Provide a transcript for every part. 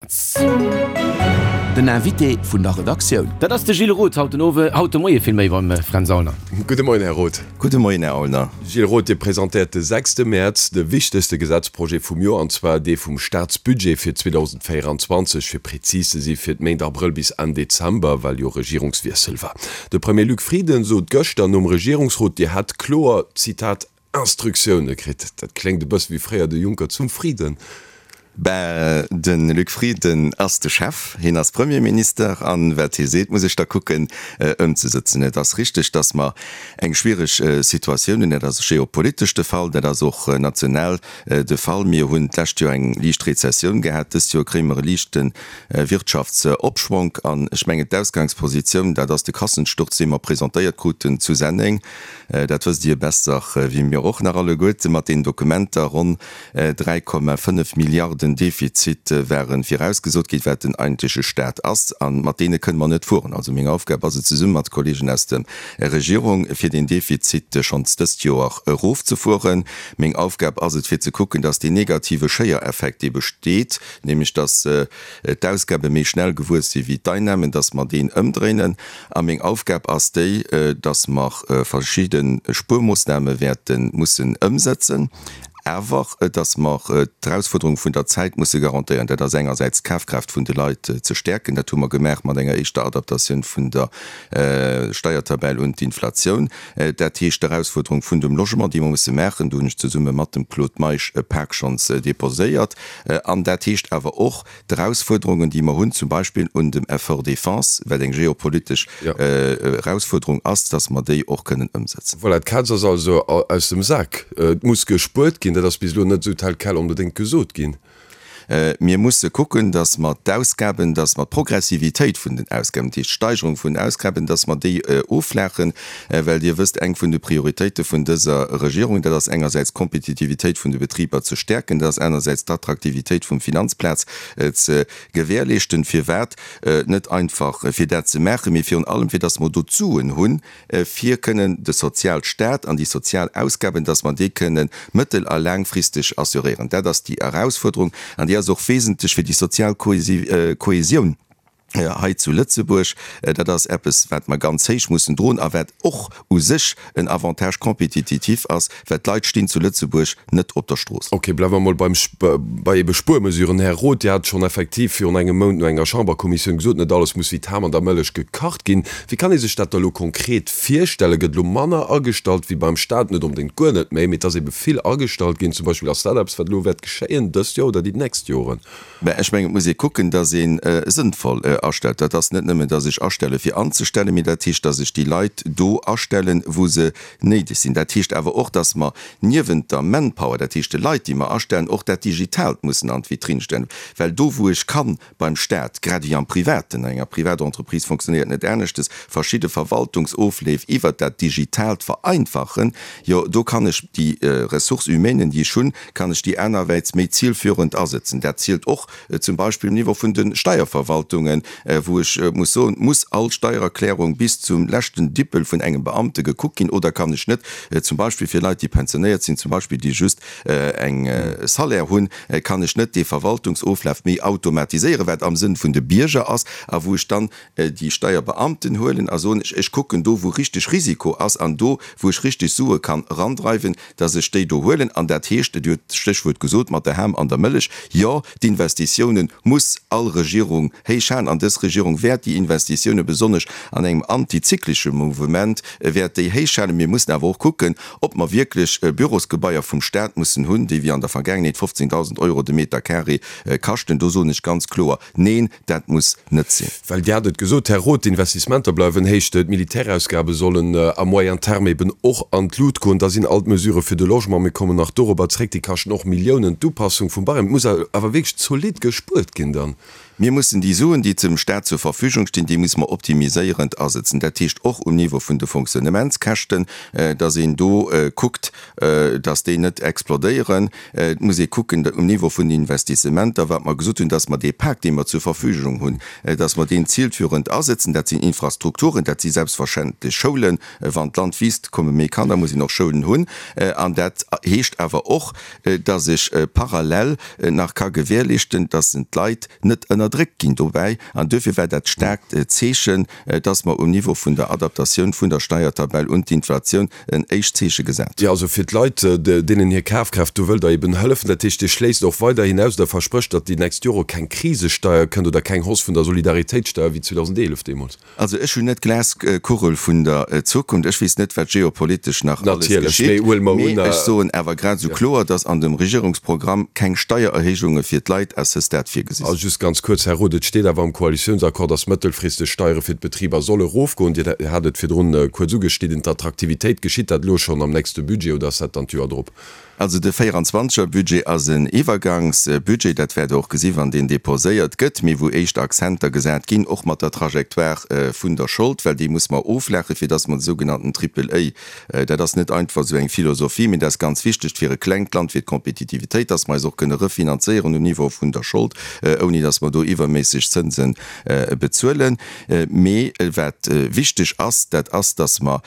Fränz. Den Invité vun der Redaktioun. Dat ass de Gilles Roth haut den Owe, haut de Moie villméi beim Fränz Aulner. Gudde Moien, Här Roth. Gudde Moien, Här Aulner. Gilles Roth, Dir presentéiert de sechste Mäerz de wichtegste Gesetzprojet vum Joer, an zwar dee vum Staatsbudget fir 2024, fir prezis ze si fir d'Méint Abrëll bis Enn Dezember, well jo Regierungswiessel war. De Premier Luc Frieden sot gëschter nom Regierungsrot, Dir hätt kloer, Zitat, Instruktioune kritt. Dat kléngt e bësse wéi fréier de Juncker zum Frieden. Ben, de Luc Frieden ass de Chef, hien ass Premierminister an wat hie seet, muss ech da kucken ëmzesëtzen. Et ass richteg, datt mer eng schwiereg Situatioun hunn. Dat ass geopolitesch de Fall, dat ass och national de Fall. Mir hunn d'lescht Joer eng liicht Rezessioun gehat, dëst Joer kréie mer e liichte Wirtschaftsopschwonk. An ech mengen, d'Ausgangspositioun, dat ass de Kassensturz, dee mer presentéiert kruten zu Senneng, Dat wësst Dir besser wéi mir och nach alleguerte. Mat deenen Dokumenter, ronn 3,5 Milliarden Defizit ware virausgesot ginn, wat den eigentleche Staat ass. A mat deene kënne mer net fueren. Also meng Aufgab ass et, zesumme mat de Kollegen aus der Regierung, fir deen Defizit schonns dëst Joer erofzefueren. Meng Aufgab ass et, fir ze kucken, dass deen negative Schéiereffekt, dee besteet, nämlech dass d'Ausgabe méi schnell gewuess si wéi d'Einnahmen, dass mer deen ëmdréinen. A meng Aufgab ass déi, dass mer verschidde Spuermoossname wäerte mussen ëmsetzen, awer dass mer d'Erausfuerderung vun der Zäit musse garantéieren. Dat ass engersäits d'Kafkraaft vun de Leit ze stäerken. Dat hu mer gemaach mat enger éischter Adaptatioun vun der Steiertabell un d'Inflatioun. Dat heescht d'Erausfuerderung vun dem Logement, déi mer musse maachen. Do hunn ech zesumme mat dem Claude Meisch e Pak schonns déposéiert. An dat heescht awer och, D'Erausfuerderungen, déi mer hunn, zum Beispill un dem Effort Défense, wat eng geopolitesch Erausfuerderung ass, dass mer déi och kënnen ëmsetzen. Voilà, d'Kaz ass also aus dem Sak. Et muss gespuert ginn. Dat ass bis elo net esou tel quel onbedéngt gesot ginn. Mir musse kucken, dass mer d'Ausgaben, dass mer d'Progressivitéit vun den Ausgaben, dat heescht d'Steigerung vun den Ausgaben, dass mer déi offlaachen, well Dir wësst, eng vun de Prioritéite vun dëser Regierung, dat ass engersäits d'Kompetitivitéit vun de Betriber ze stäerken, dat ass anersäits d'Attraktivitéit vum Finanzplaz ze gewährleeschten. Firwat? Net einfach fir dat ze maachen, mee virun allem fir datt mer do d'Suen hunn, fir kënnen de Sozialstaat an déi sozial Ausgaben, datt mer déi kënnen mëttel a laangfristeg assuréieren. Dat ass déi Erausfuerderung an déi ass och wesentlech fir déi sozial Kohesioun. hei zu Lëtzebuerg, dat ass eppes, wat mer ganz héich mussen droen a wat och u sech en Avantage compétititif ass, well d'Leit stinn zu Lëtzebuerg net op der Strooss. Ok, bleiwe mer mol beim, bei ebe Spuermesuren. Här Roth, Dir hat schonn effektiv virun engem Mount no enger Chamberkommissioun gesot, net alles muss wéi d'Ham an der Mëllech gekacht ginn. Wéi kann ee sech dat da elo konkret virstellen? Gëtt elo manner agestallt wéi beim Staat? Net onbedéngt guer net méi, mee et ass ebe vill agestallt ginn zum Beispill. Ass dat eppes, wat elo wäert geschéien dëst Joer oder déi nächst Joren? Mä ech mengen, et muss ee kucken, datt ee sënnvoll astellt. Dat ass net nëmmen, datt ech astelle fir anzestellen, mee dat heescht, datt ech déi Leit do astellen, wou se néideg sinn. Dat heescht awer och, datt mer niewent der Manpower, dat heescht de Leit, déi mer astellen, och dat Digitaalt mussen an d'Vitrinn stellen. Well do, wou ech kann beim Staat, grad ewéi am Privaten, an enger Privatentreprise fonctionnéiert net aneschtes, verschidde Verwaltungsofleef iwwert dat Digitaalt vereinfachen, jo do kann ech déi Ressources humaines, déi ech hunn, kann ech déi anerwäits méi zielführend asëtzen. Dat zielt och zum Beispill um Niveau vun de Steierverwaltungen, wou ech muss soen, Muss all Steiererklärung bis zum leschten Dippel vun engem Beamte gekuckt ginn oder kann ech net zum Beispill fir Leit, déi pensionéiert sinn, zum Beispill déi just eng Salaire hunn, kann ech net dee Verwaltungsoflaf méi automatiséieren, wat am Sënn vun de Bierger ass a wou ech dann déi Steierbeamten huelen a soen, ech kucken do, wou richteg Risiko ass an do, wou ech richteg Sue kann erandreiwen, dass ech déi do huelen. An dat heescht, Dir hutt d'Stéchwuert gesot mat der Ham an der Mëllech, jo, d'Investitiounen muss all Regierung héich halen. An dës Regierung wäert déi Investitiounen, besonnesch an engem antizyklesche Mouvement, wäert déi héich halen. Mir mussen awer och kucken, ob mer wierklech Bürosgebaier vum Stat mussen hunn, déi wéi an der Vergaangenheet 15.000 Euro de Meter carré kaschten. Do soen ech ganz kloer, Neen, dat muss net sinn. Well Dir hat et gesot, Här Roth, d'Investissementer bleiwen héich, d'Militärausgabe sollen à moyen terme eben och an d'Lut goen. Da sinn all d'Mesurë fir de Logement, mir kommen nach dorobber zréck, déi kaschten och Milliounen, d'Upassung vum Barème. Et muss awer wierklech zolidd gespuert ginn dann. Mir mussen déi Suen, déi ze. dem Staat zur Verfügung stinn, déi muss mer optimiséierend asëtzen. Dat heescht och um Niveau vun de Fonctionnementskäschten, dass een do kuckt, dass déi net explodéieren. Et muss ee kucken um Niveau vun den Investissementer, wat mer gesot hunn, dass mer dee Pak, dee mer zur Verfügung hunn, dass mer deen zielführend asëtzen. Dat sinn Infrastrukturen, dat si selbstverständlech Schoulen. Wann d'Land wiisst, komme méi Kanner, muss een och Schoulen hunn. An dat heescht awer och, dass ech parallel nach ka gewährleeschten, dass d'Leit net ënnerdréckt ginn dobäi. An duerfir war dat staarkt Zeechen, dass mer um Niveau vun der Adaptatioun vun der Steiertabell un d'Inflatioun en éischt Zeeche gesat hunn. Jo, also fir d'Leit, deenen hir Kafkraaft, do wëllt Der eben hëllefen. Dat heescht, Dir schléisst och weiderhin aus oder versprécht, datt déi nächst Jore keng Krisesteier kënnt oder keng Hausse vun der Solidaritéitssteier wéi 2011 deemools. Also ech hunn net d'Glaskugel vun der Zukunft, ech weess net, wat geopolitesch nach alles geschitt, mee ech soen awer grad esou kloer, datt an dem Regierungsprogramm keng Steiererhéijunge fir d'Leit à ce stade virgesi sinn. Just ganz kuerz, Här Roth, et steet awer am Koalitiounsaccord, datt mëttelfristeg d'Steiere fir d'Betriber solle erofgoen. Dir hat et virdrun kuerz ugeschnidden, d'Attraktivitéit. Geschitt dat elo schonn am nächste Budget oder ass dat dann d'Joer drop? Also de 24 er Budget ass en Iwwergangsbudget, dat wäert Der och gesi wann deen déposéiert gëtt, mee wou éischt Akzenter gesat ginn, och mat der Trajectoire vun der Schold, well déi muss mer oflaache fir datt mer de sougenannten Triple A, dat ass net einfach esou eng Philosophie, mee dat ass ganz wichteg fir e klengt Land, fir d'Kompetitivitéit, datt mer eis och kënne refinanzéieren um Niveau vun der Schold, ouni datt mer do iwwerméisseg Zënse bezuelen. Mee wat wichteg ass, dat ass, datt mer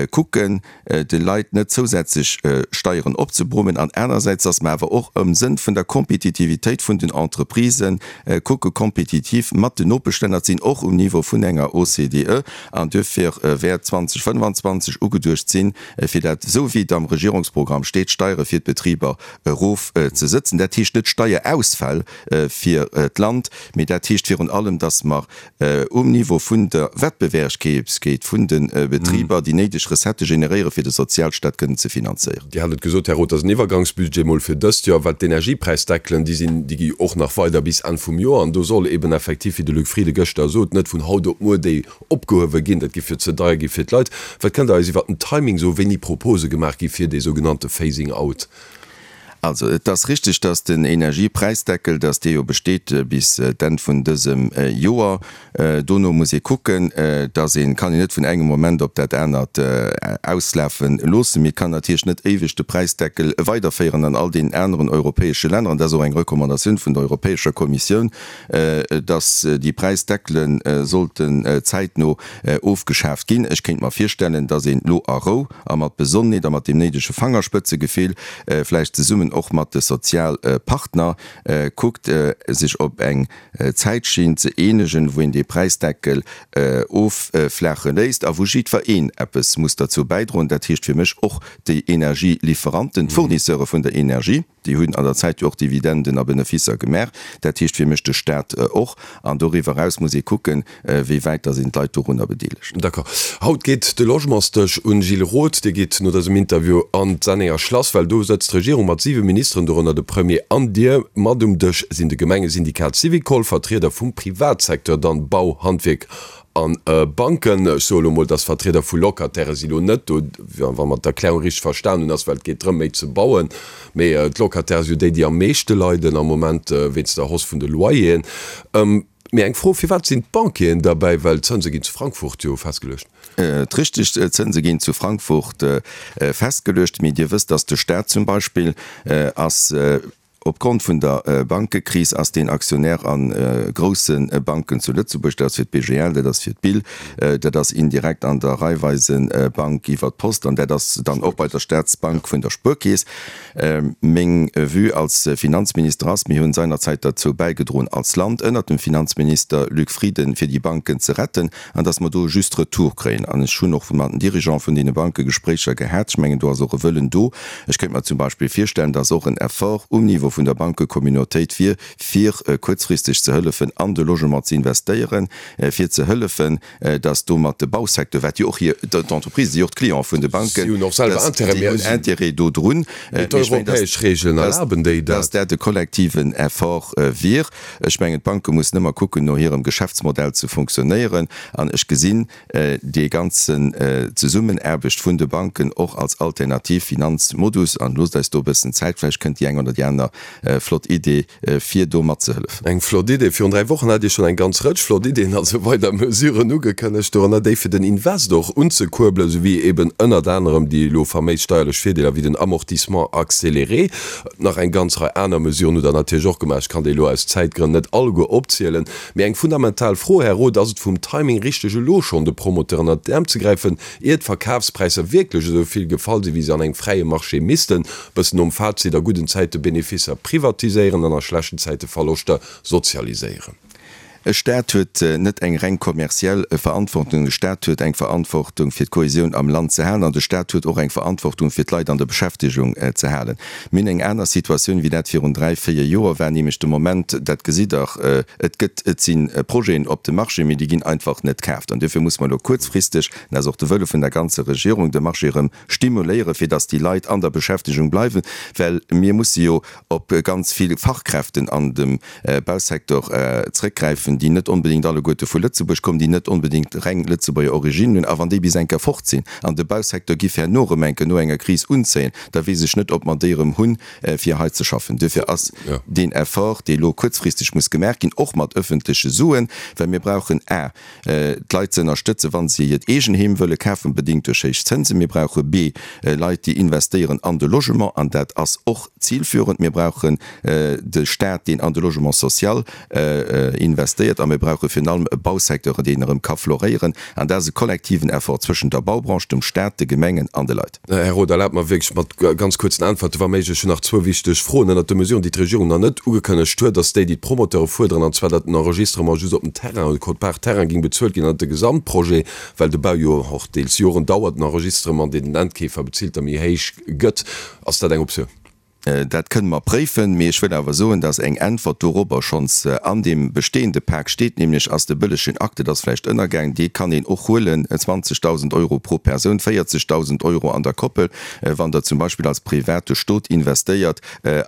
kucken, de Leit net zousätzlech Steieren opzebrummen an anersäits, dass mer awer och am Sënn vun der Kompetitivitéit vun den Entreprisë kucke kompetitiv mat den Nopeschlänner ze sinn, och um Niveau vun enger OCDE. An duerfir wäert 2025 ugeduecht sinn, fir dat, esou wéi et am Regierungsprogramm steet, d'Steiere fir d'Betriber erofzesëtzen. Dat heescht net Steierausfäll fir d'Land, mee dat heescht virun allem, dass mer um Niveau vun der Wettbewerbsfäegkeet vun de Betriber déi néideg Recettë generéieren, fir de Sozialstaat kënnen ze finanzéieren. Dir hat et gesot, Här Roth, dat ass en Iwwergangsbudget mol fir dëst Joer. Wat d'Energiepräisdeckelen, déi sinn, déi gi och nach weider bis Enn vum Joer. An do soll eben effektiv, wéi de Luc Frieden gëschter sot, net vun haut op muer déi opgehuewe ginn. Dat géif jo ze deier gi fir d'Leit. Wat kënnt Der eis iwwert den Timing soen, wéini Propose gemaach gi fir dee sougenannte Phasing out? Also, et ass richtig, dass den Energiepräisdeckel, dass dee jo besteet bis d'Enn vun dësem Joer. Dono muss ee kucken, dass een, kann een net vun engem Moment op dat anert auslafe loossen. Mee et kann natierlech net éiweg de Präisdeckel weiderféieren an all deenen aneren europäesche Länner. An dat ass och eng Recommandatioun vun der Europäescher Kommissioun, dass déi Präisdeckele sollten zäitno ofgeschaaft ginn. Ech kéint mer virstellen, dass een elo a Rou, a mat Besonnenheet a mat deem néidege Fangerspëtzegefill, vläicht zesummen och mat de Sozialpartner, kuckt, sech op eng Zäitschinn ze eenegen, wou een dee Präisdeckel offlaache léisst a wou jiddwereen eppes muss derzou bäidroen. Dat heescht fir mech och déi Energielieferanten, d'Fournisseure vun der Energie. Déi hunn an der Zäit jo och Dividenden a Beneficer gemaach. Dat heescht fir mech de Staat och. An doriwwer eraus muss ee kucken, wéi wäit dass een d'Leit dorunner bedeelegt. D'accord. Haut geet de Logementsdësch un. Gilles Roth, Dir gitt no dësem Interview an d'Sennenger Schlass, well do sëtzt d'Regierung mat 7 Ministeren, dorënner de Premier an Dir. Mat um Dësch sinn de Gemengesyndikat Syvicol, Vertrieder vum Privatsecteur, dann Bau, Handwierk A Banken, ech soe lo mol, dass Vertrieder vu Locataire si lo net do, wa mer d'Erklärung richteg verstan hunn, ass well et geet drëm méi ze bauen. Mee d'Locataire si jo déi, déi am meeschte leiden am Moment wéinst der Hausse vun de Loyeren. Mee eng Fro, Firwat sinn d'Banquieren derbäi, well d'Zënse ginn zu Frankfurt jo festgeluecht? Richteg, d'Zënse ginn zu Frankfurt festgeluecht. Mee Dir wësst, dass de Staat zum Beispill ass, Opgrond vun der Bankekris ass deen Aktionär a grousse Banken zu Lëtzebuerg, dat ass fir d'BGL, dat ass fir d'BIL, dat ass indirekt an der Raiffeisenbank iwwer d'Post an dat ass dann och bei der Staatsbank vun der Spuerkeess. Meng Vue als Finanzminister ass, mir hunn seinerzäit derzou bäigedroen als Land ënnert dem Finanzminister Luc Frieden, fir déi Banken ze retten, An dass mer do e juste Retour kréien. An ech hunn och mat den Dirigeante vun deene Banke Gespréicher gehat. Ech mengen, do ass och e Wëllen do. Ech kéint mer zum Beispill virstellen, dass och en Effort um Niveau vun der Bankecommunautéit wier, fir kuerzfristeg ze hëllefen, an de Logement ze investéieren, fir ze hëllefen, dass domat de Bausecteur, wat jo och hir, d'Entreprisen si jo och d'Cliente vun de Banken, Si hunn och selwer Intérêt, déi hunn Intérêt do drun. Mee d'europäesch Regeln erlaben déi dat. Dass dat e kollektiven Effort wier. Ech mengen, d'Banke mussen ëmmer kucken, no hirem Geschäftsmodell ze funktionéieren. An ech gesinn déi ganzen Zesummenaarbecht vun de Banken och als alternativ Finanzmodus. An loosst eis do e bëssen Zäit, vläicht kënnt déi eng oder déi aner. flott Idee fir do matzehëllefen. Eng flott Idee. Virun 3 Wochen hat Dir schonn eng ganz Rëtsch flott Ideeën, also weider Mesuren ugekënnegt, dorënner déi fir den Invest och unzekuerbelen, souwéi eben ënnert anerem déi elo faméis steierlech Virdeeler wéi den Amortissement accéléré. Nach eng ganz Rei aner Mesuren hutt Der natierlech och gemaach. Ech kann déi elo aus Zäitgrënn net alleguer opzielen. Mee eng fundamental Fro, Här Roth, Ass et vum Timing richteg elo schonn de Promoteuren ënnert d'Äerm ze gräifen, ier d'Verkafspräisser wierklech esou vill gefall sinn, wéi se an engem fräie Marché missten, bëssen nom Fazit, a gudden Zäite Beneficer privatiséieren an a schlechten Zäite Verloschter sozialiséieren. E Staat huet net eng reng kommerziell Verantwortung. De Staat huet eng Verantwortung, fir d'Kohesioun am Land ze halen, an de Staat huet och eng Verantwortung, fir d'Leit an der Beschäftegung ze halen. Mir hunn eng aner Situatioun, wéi dat virun dräi, véier Joer war, nämlech de Moment, dat gesitt Der, et gëtt, et si Projeten op dem Marché, mee déi ginn einfach net kaaft. An duerfir muss mer elo kuerzfristeg, dat ass och de Wëlle vun der ganzer Regierung, de Marché erëm stimuléieren, fir dass déi Leit an der Beschäftegung bleiwen, well mir musse jo op ganz vill Fachkräften an dem Bausecteur zrëckgräifen, déi net onbedéngt alleguerte vu Lëtzebuerg kommen, déi net onbedéngt reng Lëtzebuerger Origine hunn. A wann déi bis eng Kéier fort sinn an de Bausecteur giff herno erëm eng Kéier no enger Kris unzéien, da weess ech net, ob mer déi erëm hunn, fir hei ze schaffen. Duerfir ass deen Effort, dee elo kuerzfristeg muss gemaach ginn, och mat öffentleche Suen, well mir brauchen a d'Leit ze ënnerstëtzen, wa se hiert Eegenheem wëlle kafen, bedéngt duerch héich Zënsen. Mir brauche b Leit, déi investéieren an de Logement, an dat ass och zilführend. Mir brauchen de Staat, deen an de Logement social investéiert, a mir brauche virun allem e Bausecteur, deen erëm ka floréieren. An dat ass e kollektiven Effort zwëschent der Baubranche, dem Staat, de Gemengen an de Leit. Här Roth, erlaabt mer wierklech mat ganz kuerzen Äntwerte wa méiglech. Ech hunn nach zwou wichteg Froen. Ënnert de Mesuren, déi d'Regierung nach net ugekënnegt huet, ass déi, déi d'Promoteure fuerderen, an zwar datt den Enregistrement just op den Terrain, de Quote-part Terrain géing bezuelt ginn an net de Gesamtprojet, well de Bau jo och deels Joren dauert, den Enregistrement, deen den Endkeefer bezilt, da méi héich gëtt. Ass dat eng Optioun? Dat kënne mer préifen, mee ech wëll awer soen, dass eng Äntwert dorobber schonns an deem bestehende Pak steet, nämlech ass de bëllegen Acte, dat ass vläicht ënnergaang, dee kann een och huelen, 20.000 Euro pro Persoun, 40.000 Euro an der Koppel, wann Der zum Beispill als private Stot investéiert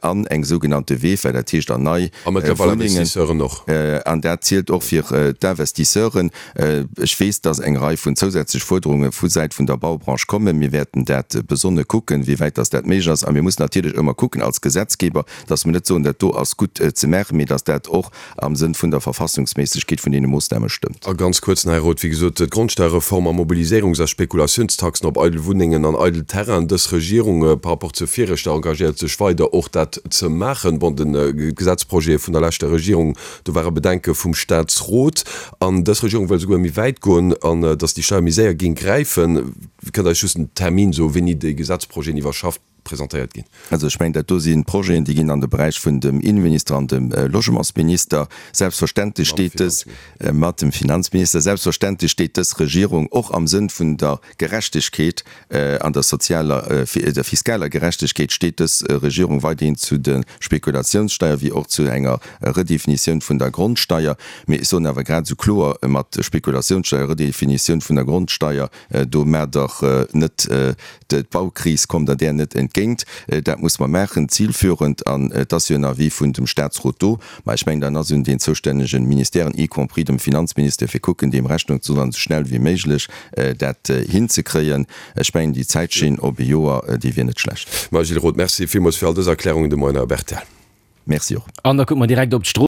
an eng sougenannte VEFA, dat heescht an nei A mëttlerweil Wunnengen. Investisseuren och. An dat zielt och fir d'Investisseuren. Ech weess, dass eng Rei vun zousätzlech Fuerderunge vu Säit vun der Baubranche kommen. Mir wäerten dat besonne kucken, wéi wäit dass dat méiglech ass. A mir mussen natierlech ëmmer kucken als Gesetzgeber, dass mir net soen, dat do ass gutt ze maachen, mee dass dat och am Sënn vun der Verfassungsméissegkeet vun deene Moossname stëmmt. A ganz kuerz nach, Här Roth, wéi gesot, d'Grondsteuerreform a Mobiliséierungs a Spekulatiounstaxen op eidel Wunnengen an eidel Terrainen, dës Regierung par rapport zur viregter engagéiert sech weider och dat ze maachen. Bon, de Gesetzprojet vun der leschter Regierung, Do ware Bedenke vum Staatsrot. An dës Regierung wëll esouguer méi wäit goen, an datt déi Steier méi séier géing gräifen. Kënnt Der eis just en Termin soen, wéini déi Gesetzprojeten iwwerschafft presentéiert ginn? Also ech mengen, dat do si Projeten, déi ginn an de Beräich vun dem Innenminister an dem Logementsminister. Selbstverständlech steet dës, mat dem Finanzminister, selbstverständlech steet dës Regierung och am Sënn vun der Gerechtegkeet An der sozialer, der fiskaler Gerechtegkeet steet dës Regierung weiderhin zu de Spekulatiounssteier wéi och zu enger Redefinitioun vun der Grondsteier. Mee ech soen awer grad esou kloer, mat Spekulatiounssteier, Redefinitioun vun der Grondsteier, do maacht Der net d'Baukris, kommt Der där net entgéint. Dat muss mer maachen, zilführend. An et ass jo en Avis vun dem Statsrot do. Mä ech mengen, dann ass un den zoustännegen Ministèren, y compris dem Finanzministère, fir kucken, deem Rechnung ze droen an esou schnell wéi méiglech dat hinzekréien. Ech mengen, déi Zäitschinn op e Joer, déi wier net schlecht. Mme Gilles Roth, Merci villmools fir all dës Erklärungen de Moien op rtl. Merci och. An da kucke mer direkt op d'Strooss.